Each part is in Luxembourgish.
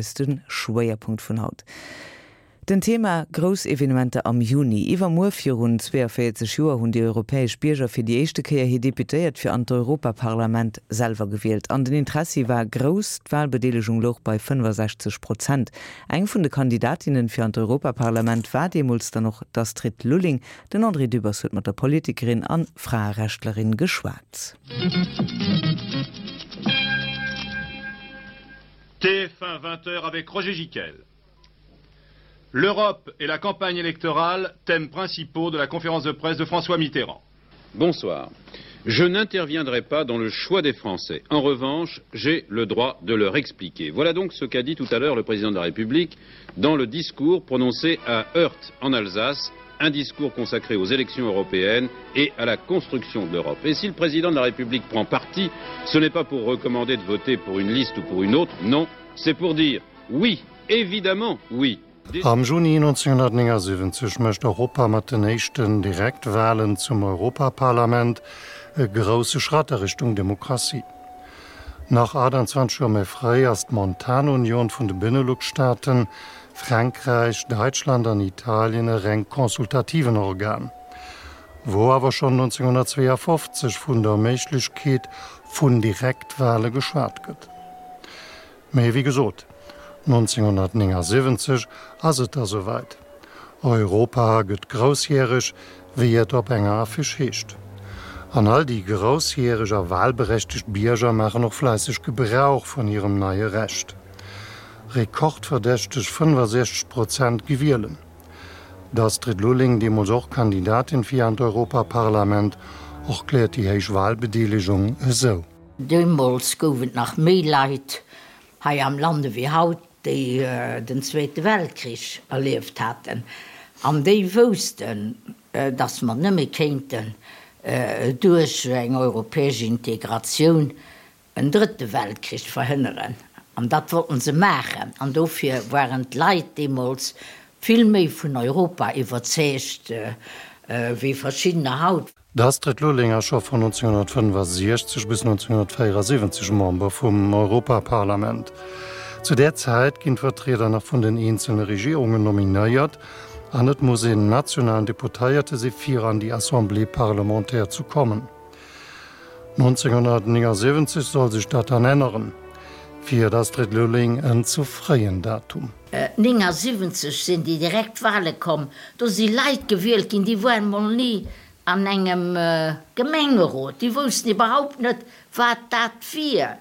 Ass de Schwéierpunkt vun haut. Den Thema, Grouss Evenementer am Juni. Iwwermuer virun 42 Joer hunn déi europäesch Bierger fir déi éischte Kéier hir Deputéiert fir an d'Europaparlament selwer gewielt. An den Interessi war grouss, d'Walbedeelegung louch bei 65 Prozent. Eng vun de Kandidatinnen fir an d'Europaparlament war deemools dann och d'Astrid Lulling. Den André Dübbers huet mat der Politikerin an Fraerechtlerin geschwat. TF1 20h avec Roger Giquel. L'Europe et la campagne électorale, thèmes principaux de la conférence de presse de François Mitterrand. Bonsoir. Je n'interviendrai pas dans le choix des Français. En revanche, j'ai le droit de leur expliquer. Voilà donc ce qu'a dit tout à l'heure le président de la République dans le discours prononcé à Heurt en Alsace, un discours consacré aux élections européennes et à la construction de l'Europe. Et si le président de la République prend parti, ce n'est pas pour recommander de voter pour une liste ou pour une autre, non, c'est pour dire oui, évidemment oui. Am Juni 1979 mécht Europa mat den éischten Direktwalen zum Europaparlament e grousse Schratt a Richtung Demokratie. Nach 28 Joer méi fréi ass d'Montanunion vun de Benelux-Staaten, Frankräich, Däitschland an Italien e reng consultativen Organ, wou awer schonn 1952 vun der Méiglechkeet vun Direktwale geschwat gëtt. Mee wéi gesot, 1979 ass et da souwäit, Europa gëtt groussjäreg, wéi et op enger Affiche heescht. An all déi groussjäreg a walberechtegt Bierger maachen och fläisseg Gebrauch vun hirem neie Recht. Rekordverdächteg 65 Prozent gi wielen. D'Astrid Lulling, deemools och Kandidatin fir an d'Europaparlament, erkläert déi héich Walbedeelegung esou. Deemools gouf et nach méi Leit hei am Land ewéi haut, déi den Zweete Weltkrich erlieft haten an déi woussten, datt mer nëmme kéinten duerch eng europäesch Integratioun en drëtte Weltkrich verhënneren. An dat wollten se maachen. An dofir waren d'Leit deemools vill méi vun Europa iwwerzeegt wéi verschiddener haut. D'Astrid Lulling ass scho vun 1965 bis 1974 Member vum Europaparlament. Zu där Zäit ginn d'Vertrieder nach vun den eenzele Regierungen nominéiert an et muss een nationalen Deputéierte si fir an déi Assemblée parlementaire zu kommen. 1979 soll sech dat dann änneren. Fir d'Astrid Lulling en ze fréien Datum. 79 sinn déi direkt Wale komm, do si Leit gewielt ginn, déi waren mol ni an engem Gemengerot, déi woussten iwwerhaupt net, wat dat wier.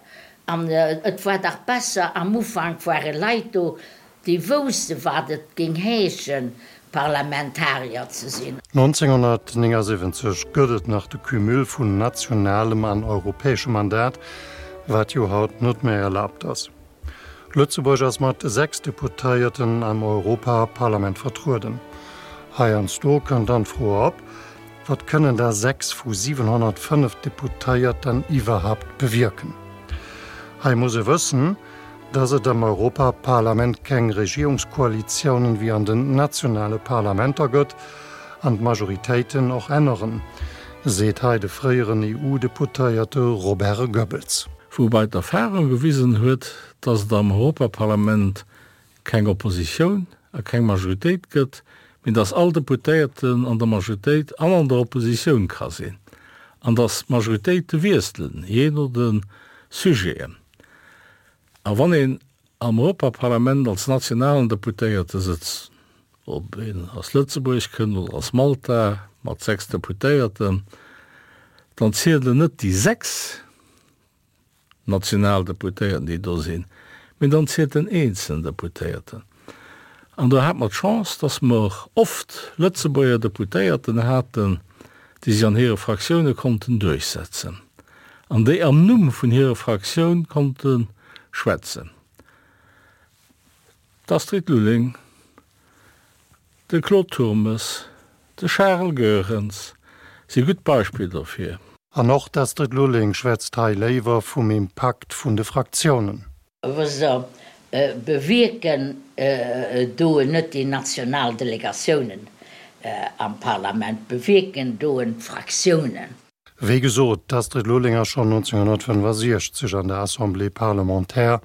An et war dach besser, am Ufank ware Leit do, Déi wousste wat et géing heeschen, Parlamentarier ze sinn. 1979 gëtt et nach de Cumul vun nationalem an europäeschem Mandat, wat jo haut net méi erlaabt ass. Lëtzebuerg ass mat 6 Deputéierten am Europaparlament vertrueden. Heiansdo kënnt dann d'Fro op, Wat kënnen da 6 vu 705 Deputéierten iwwerhaupt bewierken? Hei muss e wëssen, Dass et am Europaparlament keng Regierungskoalitiounen wéi an den nationale Parlamenter gëtt an d'Majoritéiten och änneren, seet hei de fréieren EU-Deputéierte Robert Goebbels. Woubai d'Erfahrung gewisen huet, dass et am Europaparlament keng Oppositioun a keng Majoritéit gëtt, mee dass all Deputéierten an der Majoritéit an an der Oppositioun ka sinn an dass d'Majoritéite wiesselen, jee no de Sujeten. A wann een am Europaparlament als nationalen Deputéierte sëtzt, ob een aus Lëtzebuerg kënnt oder aus Malta mat 6 Deputéierten, dann zielen net déi 6 national Deputéierten, déi do sinn, mee dann zielt den eenzelen Deputéierten. An do hate mer d'Chance, dass mer oft Lëtzebuerger Deputéierten haten, déi sech an hire Fraktioune konnten duerchsetzen an déi am Numm vun hirer Fraktioun konnte schwätzen, d'Astrid Lulling, de Claude Turmes, de Charel Goerens si gutt Beispiller dofir. An och d'Astrid Lulling schwätzt hei léiwer vum Impakt vun de Fraktiounen. Wësst Der, bewierken doen net déi national Delegatiounen am Parlament, bewierken doen d'Fraktiounen. Wéi gesot, d'Astrid Lulling ass schonn 1965 an der Assemblée parlementaire.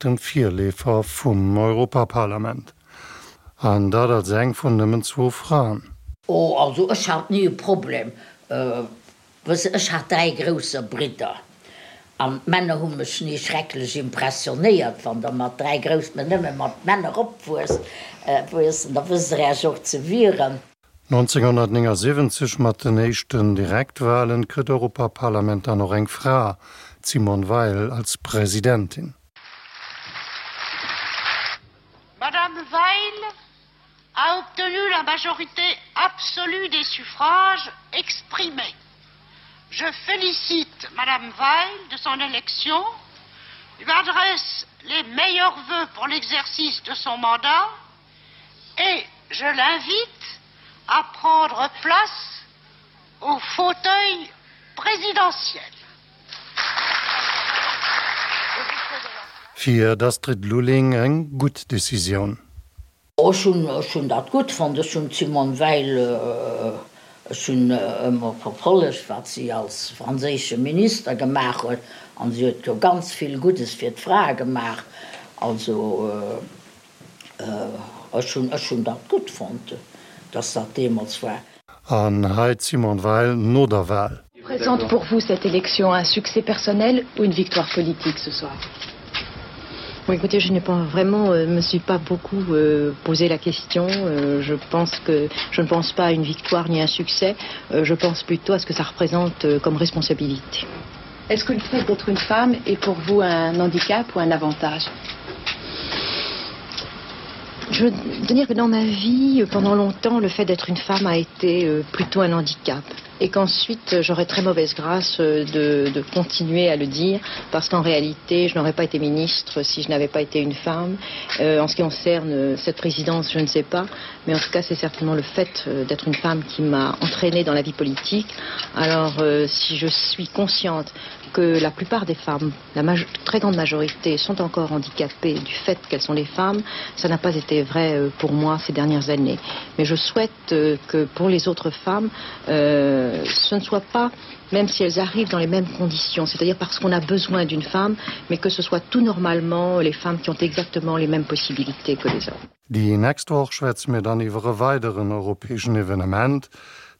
dem Virleefer vum Europaparlament. An dat als eng vun nëmmen zwou Fraen. Oh, also ech hat ni e Problem. Wëss, ech hat dräi grousser Bridder an d'Männer hu mech ni schrecklech impressionéiert. Wann der mat dräi grouss, mä nëmme mat Männer opwuesst, da wësst der Äech och ze wieren. 1979 mat den éischten Direktwalen kritt d'Europaparlament dann och eng Fra, d'Simone Veil, als Presidentin. Madame Veil a obtenu la majorité absolue des suffrages exprimés. Je félicite Madame Weil de son élection, lui adresse les meilleurs vœux pour l'exercice de son mandat et je l'invite à prendre place au fauteuil présidentiel. Fir d'Astrid Lulling eng gutt Decisioun. Ech hunn, ech hunn dat gutt fonnt. Ech hunn d'Simone Veil, ech hunn ëmmer verfollegt, wat si als franséische Minister gemaach huet, an si huet jo ganz vill Guddes fir d'Frae gemaach. Also ech hunn, ech hunn dat gutt fonnt, datt dat deemools war. An hei d'Simone Veil no der Wahl. Représente pour vous cette élection un succès personnel ou une victoire politique ce soir Bon, écoutez, je n'ai pas vraiment euh, me suis pas beaucoup euh, posé la question. Euh, je pense que je ne pense pas à une victoire ni un succès. Euh, je pense plutôt à ce que ça représente euh, comme responsabilité. Est-ce que le fait d'être une femme est pour vous un handicap ou un avantage Je veux dire que dans ma vie, pendant longtemps, le fait d'être une femme a été euh, plutôt un handicap et qu'ensuite j'aurais très mauvaise grâce euh, de, de continuer à le dire parce qu'en réalité je n'aurais pas été ministre si je n'avais pas été une femme euh, en ce qui concerne euh, cette présidence je ne sais pas mais en tout cas c'est certainement le fait euh, d'être une femme qui m'a entraînée dans la vie politique alors euh, si je suis consciente que la plupart des femmes la très grande majorité sont encore handicapées du fait qu'elles sont les femmes ça n'a pas été vrai euh, pour moi ces dernières années mais je souhaite euh, que pour les autres femmes euh, ce ne soit pas même si elles arrivent dans les mêmes conditions c'est à dire parce qu'on a besoin d'une femme mais que ce soit tout normalement les femmes qui ont exactement les mêmes possibilités que les hommes. Déi nächst Woch schwätze mir dann iwwer e weideren europäeschen Evenement,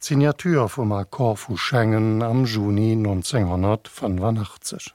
d'Signature vum Accord vu Schengen am Juni 1985.